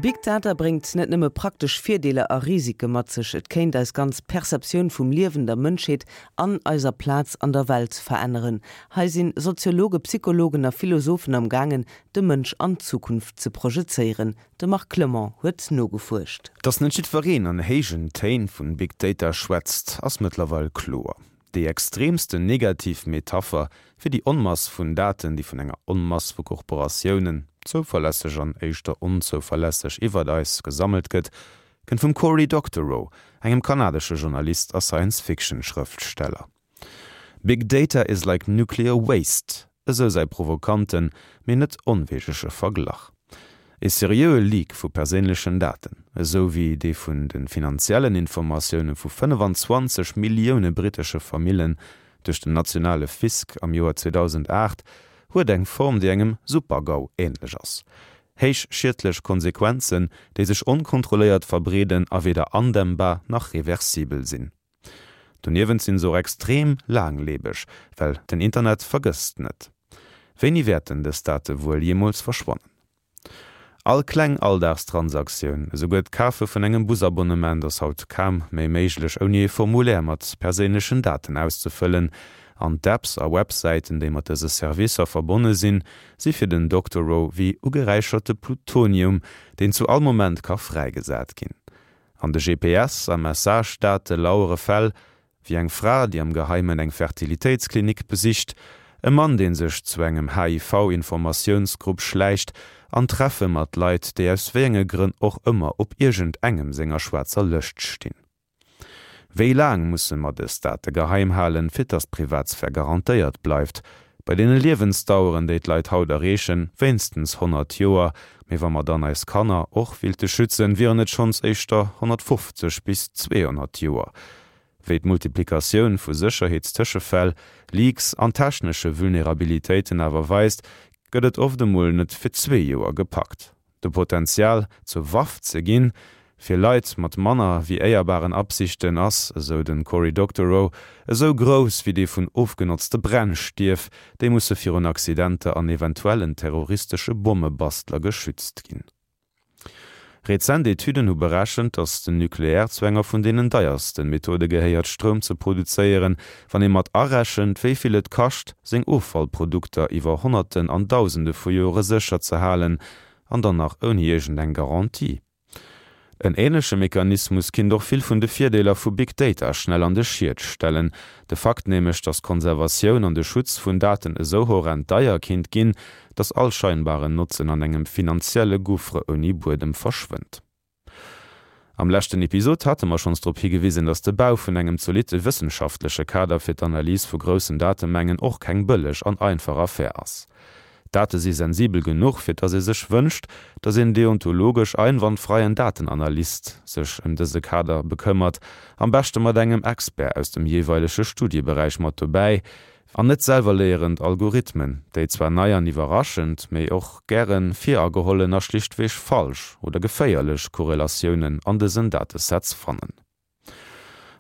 Big Data bréngt net nëmme praktesch Virdeeler a Risike mat sech, et kéint eis ganz Perceptioun vum Liewen, der Mënschheet an eiser Plaz an der Welt veränneren. Hei sinn Soziologe, Psychologen a Philosophen am gaangen, de Mënsch an d'Zukunft ze projezéieren. De Marc Clement huet nogefuerscht. Dass net jiddwereen an héijen Téin vun Big Data schwätzt, ass mëttlerweil kloer. Déi extreemsten negativ Metapher fir déi Onmass vun Daten, déi vun enger Onmass vu Korporatiounen, zouverlässeg an éischter onzouverlässeg, iwwert eis gesammelt gëtt, kënnt vum Cory Doctorow, engem kanadesche Journalist a Science-Fiction-Schrëftsteller. Big data is like nuclear waste, esou säi provokanten, mee net onweegege Verglach. E seriöe Leak vu perséinlechen Daten, esou wéi dee vun de finanziellen Informatioune vu 25 Millioune brittesche Famillen duerch den nationale Fisk am Joer 2008, huet eng Form, déi engem Super-GAU änlech ass. Héich schiedlech Konsequenzen, déi sech onkontrolléiert verbreeden a weder andämmbar nach reversibel sinn. Doniewent sinn se och extrem laanglebeg, well den Internet vergësst net. Wéini wäerten dës Date wuel jeemools verschwannen? All kleng Alldagstransaktioun, esouguer d'Kafe vun engem Busabonnement ass haut kaum méi méiglech ouni e Formulaire mat perséinlechen Daten auszefëllen. An d'Apps a Websäiten, déi mat dëse Servicer verbonne sinn, si fir den Doctorow wéi ugeräicherte Plutonium, deen zu all Moment ka fräigesat ginn. An de GPS a Message-Date lauere Fäll, wéi eng Fra, déi am Geheimen eng Fertilitéitsklinik besicht, e Mann, dee sech zu engem HIV-Informatiounsgrupp schläicht, an Treffe mat Leit, déi aus wéi enge Grënn och ëmmer op iergendengem senger schwaarzer Lëscht stinn. Wéi laang musse mer dës Date geheim halen, fir dass d'Privatsphär garantéiert bleift? Bei deene Liewensdaueren, déi d'Leit haut erreechen, wéinstens 100 Joer, mee wa mer dann eis Kanner och willte schützen, wieren et schonns éischter 150 bis 200 Joer. Wéi d'Multiplikatioun vu Sécherheetstëschefäll, Leaks an technesche Vulnerabilitéiten awer weist, gëtt et oft emol net fir zwee Joer gepackt. De Potenzial, zur Waff ze ginn, fir Leit mat manner wéi éierbaren Absichten, ass, esou de Cory Doctorow, esou grouss wéi dee vun ofgenotzte Brennstieff, déi musse virun Accidenter an eventuellen terroristesche Bommebastler geschützt ginn. Rezent Etüden hu berechent, datt den Nucléaire zu enger vun deenen deierste Methode gehéiert, Stroum ze produzéieren, wann ee mat arechent, wéi vill et kascht, seng Offallprodukter iwwer Honnerten an Dausende vu Jore sécher ze halen, an dann nach ouni iergend eng Garantie. En änleche Mechanismus kinnt och vill vun de Virdeeler vu Big Data schnell an de Schiet stellen. De Fakt nämlech, datt d'Konservatioun an de Schutz vun Daten esou horrend deier kinnt ginn, datt all scheinbaren Notzen an engem finanzielle Gouffre ouni Buedem verschwënnt. Am leschten Episod hate mer schonns drop higewisen, dass de Bau vun engem zolitte wëssenschaftleche Kader fir d'Analys vu groussen Datemengen och keng bëlleg an einfach Affär ass. D'Date si sensibel genuch, fir dass ee sech wënscht, dass een deontologesch einwandfreien Datenanalyst sech ëm dëse Kader bekëmmert, am beschte mat engem Expert aus dem jeeweilege Studieberäich mat dobäi, An net selwerléierend Algorithmen, déi zwar nei an iwwerraschend, mee och gäre viragehollen a schlichtweg falsch oder geféierlech Korrelatiounen an dësen Datesets fannen.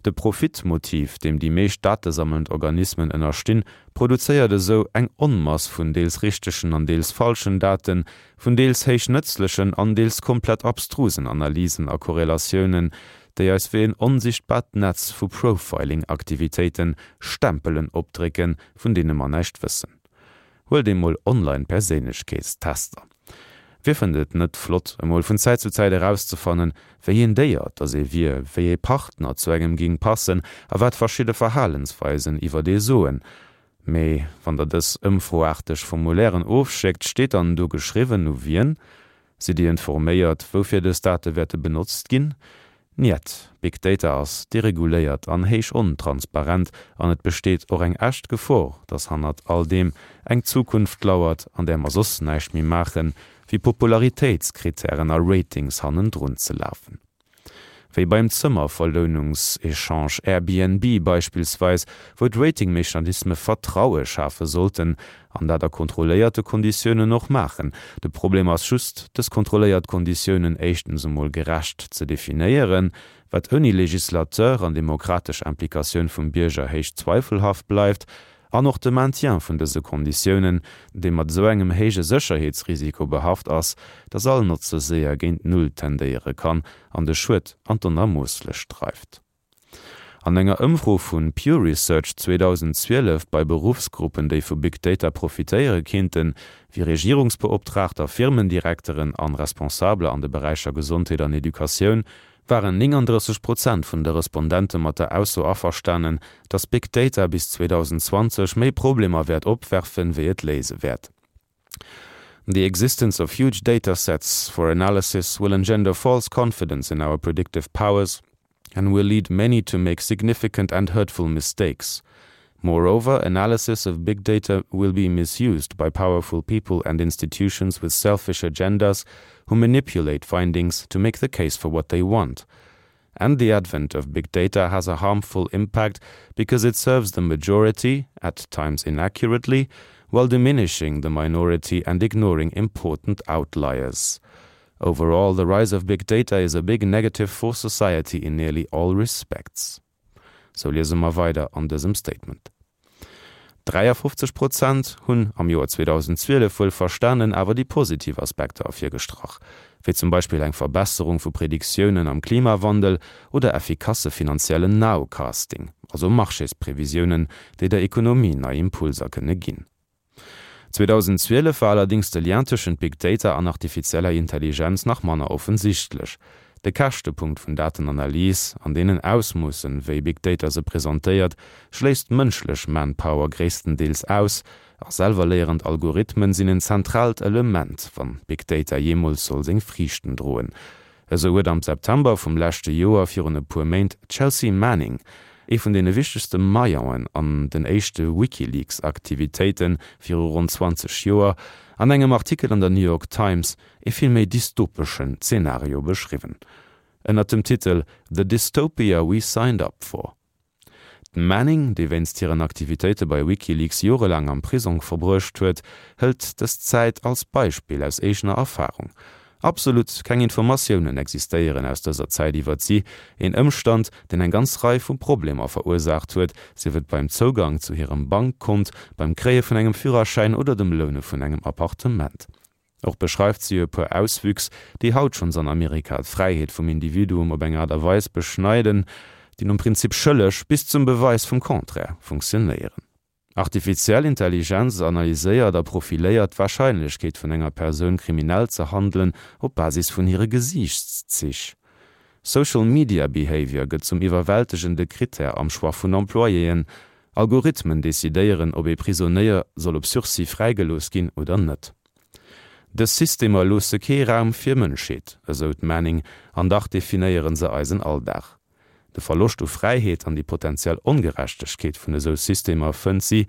De Profitmotiv, deem déi meescht datesammelnd Organismen ënnerstinn, produzéiert esou eng Onmass vun deels richtegen an deels falschen Daten, vun deels héich nëtzlechen an deels komplett abstrusen Analysen a Korrelatiounen, déi eis wéi en onsichtbart Netz vu Profiling-Aktivitéiten Stempelen opdrécken, vun deene mer näischt wëssen. Huelt emol Online-Perséinlechkeetstester. Wie fënnt et net flott, emol vun Zäit zu Zäit erauszefannen, wéi een Déier dass ee wier, wéi ee Partner zu engem ging passen a wat verschidde Verhalensweisen iwwert ee soen? Mee wann der dës ëmfroaarteg Formulairen ofschéckt, steet dann do geschriwwen, u wien? Sidd Dir informéiert, woufir dës Date wäerte benotzt ginn? Njet, Big Data ass dereguléiert an héich ontransparent an et besteet och eng echt Gefor, dass hannert all deem eng Zukunft lauert, an där mer soss näischt méi maachen, wéi Popularitéitskritären a Ratings hannendrun ze lafen. Wéi beim Zëmmerverlounungséchange Airbnb beispillsweis, wou d'Ratingmechanisme Vertraue schafe sollten, an dat a kontrolléierte Konditiounen och maachen. De Problem ass just, dës kontrolléiert Konditiounen éischtens emol gerecht ze definéieren, wat ouni Legislateur an demokratesch Implikatioun vum Bierger héich zweifelhaft bleift, An och de Maintien vun dëse Konditiounen, dee mat esou engem héije Sécherheetsrisiko behaft ass, dass all Notze séier géint Null tendéiere kann an de Schued an d'Onermoosslech dreift. An enger Ëmfro vu Pew Research 2012 bei Beruffsgruppen, déi vu Big Data profitéiere kinnten, wéi Regierungsbeoptraagter, Firmendirekteren an Responsabeler an de Beräicher Gesondheet an Educatioun, waren 39 Prozent vun de Respondente mat der Ausso averstanen, datt Big Data bis 2020 méi Problemer wäert opwerfen, wéi et léise wäert. The existence of huge data sets for analysis will engender false confidence in our predictive powers and will lead many to make significant and hurtful mistakes. Moreover, analysis of big data will be misused by powerful people and institutions with selfish agendas who manipulate findings to make the case for what they want. And the advent of big data has a harmful impact because it serves the majority, at times inaccurately, while diminishing the minority and ignoring important outliers. Overall, the rise of big data is a big negative for society in nearly all respects. Sou liese mer weider an dësem Statement. 53 Prozent hunn am Joer 2012 wuel verstanen, awer déi positiv Aspekter ervirgestrach, wéi zum Beispill eng Verbesserung vu Prediktiounen am Klimawandel oder effikasse finanziellen Nowcasting, also Marchésprevisiounen, déi der Ekonomie nei Impulser kënne ginn. 2012 war allerdéngs de Lien tëschent Big Data an artifizieller Intelligenz nach manner offensichtlech. De Käschtepunkt vun Datenanalys, an deenen Ausmoossen, wéi Big Data se presentéiert, schléisst mënschlech Manpower gréisstendeels aus, a selwerléierend Algorithmen sinn en zentraalt Element, wann Big Data jeemools soll seng Friichten droen. Esou huet am September vum leschte Joer, virun e puer Méint, d'Chelsea Manning, ee vun deene wichtegste Maillonen an den éischte WikiLeaks-Aktivitéite viru ronn 20 Joer, an engem Artikel an der New York Times ee vill méi dystopeschen Zenario beschriwwen, ënnert dem Titel The Dystopia We Signed Up For. D'Manning, déi wéinst hiren Aktivitéite bei WikiLeaks jorelaang am Prisong verbruecht huet, hëlt dës Zäit als Beispill aus eegener Erfarung. Absolut keng Informatiounen existéieren aus dëser Zäit iwwert si, een Ëmstand, deen eng ganz Rei vu Problemer verursaacht huet, sief et beim Zougang zu hirem Bankkont, beim Kréie vun engem Führerschäin oder dem Loune vun engem Appartement. Och beschreift si e puer Auswüchs, déi haut schonns an Amerika d'Fräiheet vum Individuum op eng Aart a Weis beschneiden, déi nom Prinzip schëlleg bis zum Beweis vum Contraire funktionéieren. Artifiziell Intelligenz analyséiert a profiléiert d'Warscheinlechkeet vun enger Persoun kriminell ze handelen op Basis vun hire Gesiichtszich. Social Media Behavior gëtt zum iwwerwältegende Critère am Choix vun Employéen. Algorithmen decidéieren, ob ee Prisonéier soll op Sursis fräigelooss ginn oder net. Dës Systemer loosse kee Raum fir Mënschheet, esou d'Manning, an dach definéiere se eisen Alldag. De Verloscht u Fräiheet an déi potentiell Ongerechtegkeet vun esou Systemer fënnt si,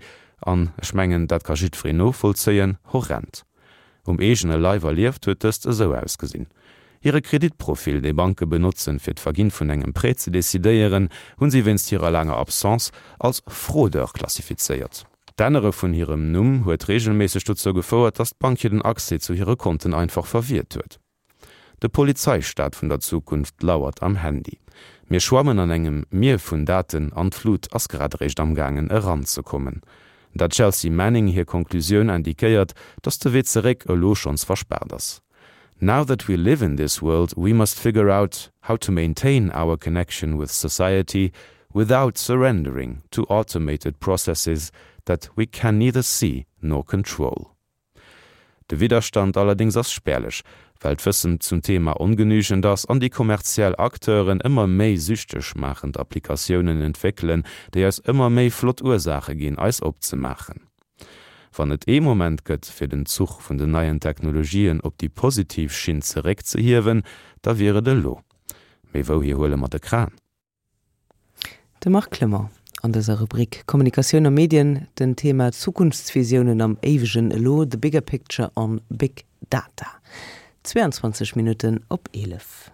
an ech mengen, dat ka jiddwereen novollzéien, horrend. Um eegene Leif erlieft huet dëst esou ausgesinn, Hire Kreditprofil, dee Banke benotzen, fir d'Verginn vun engem Prêt ze decidéieren, hunn si wéinst hirer laanger Absence als Fraudeur klassifizéiert. D'Ännere vun hirem Numm huet reegelméisseg dozou gefouert, datt d'Bank hir den Accès zu hire Konten einfach verwiert huet. De Polizeistaat vun der Zukunft lauert am Handy. Mir schwammen an engem Mier vun Daten an d'Flut ass grad eréischt amgaangen eranzekommen. Der Chelsea Manning hir Konklusioun indiquéiert, datt de Wee zeréck elo schonns verspaart ass. Now that we live in this world, we must figure out how to maintain our connection with society without surrendering to automated processes that we can neither see nor control. De Widderstand allerdéngs ass spärlech, well d'Wëssen zum Thema ongenügend ass an déi kommerziell Acteuren ëmmer méi süchteg maachend Applikatiounen entwéckelen, déi eis ëmmer méi flott Ursaache ginn, eis opzemaachen. Wann et ee Moment gëtt, fir den Zuch vun den neien Technologien op déi positiv Schinn zeréckzehiewen, da wier et elo. Mee wouhier huele mer de Kran? De Marc Clement an dëser Rubrik Kommunikatioun a Medien, den Thema Zukunftsvisiounen am éiwegen Elo, the bigger picture on big data. 22 Minutten op 11.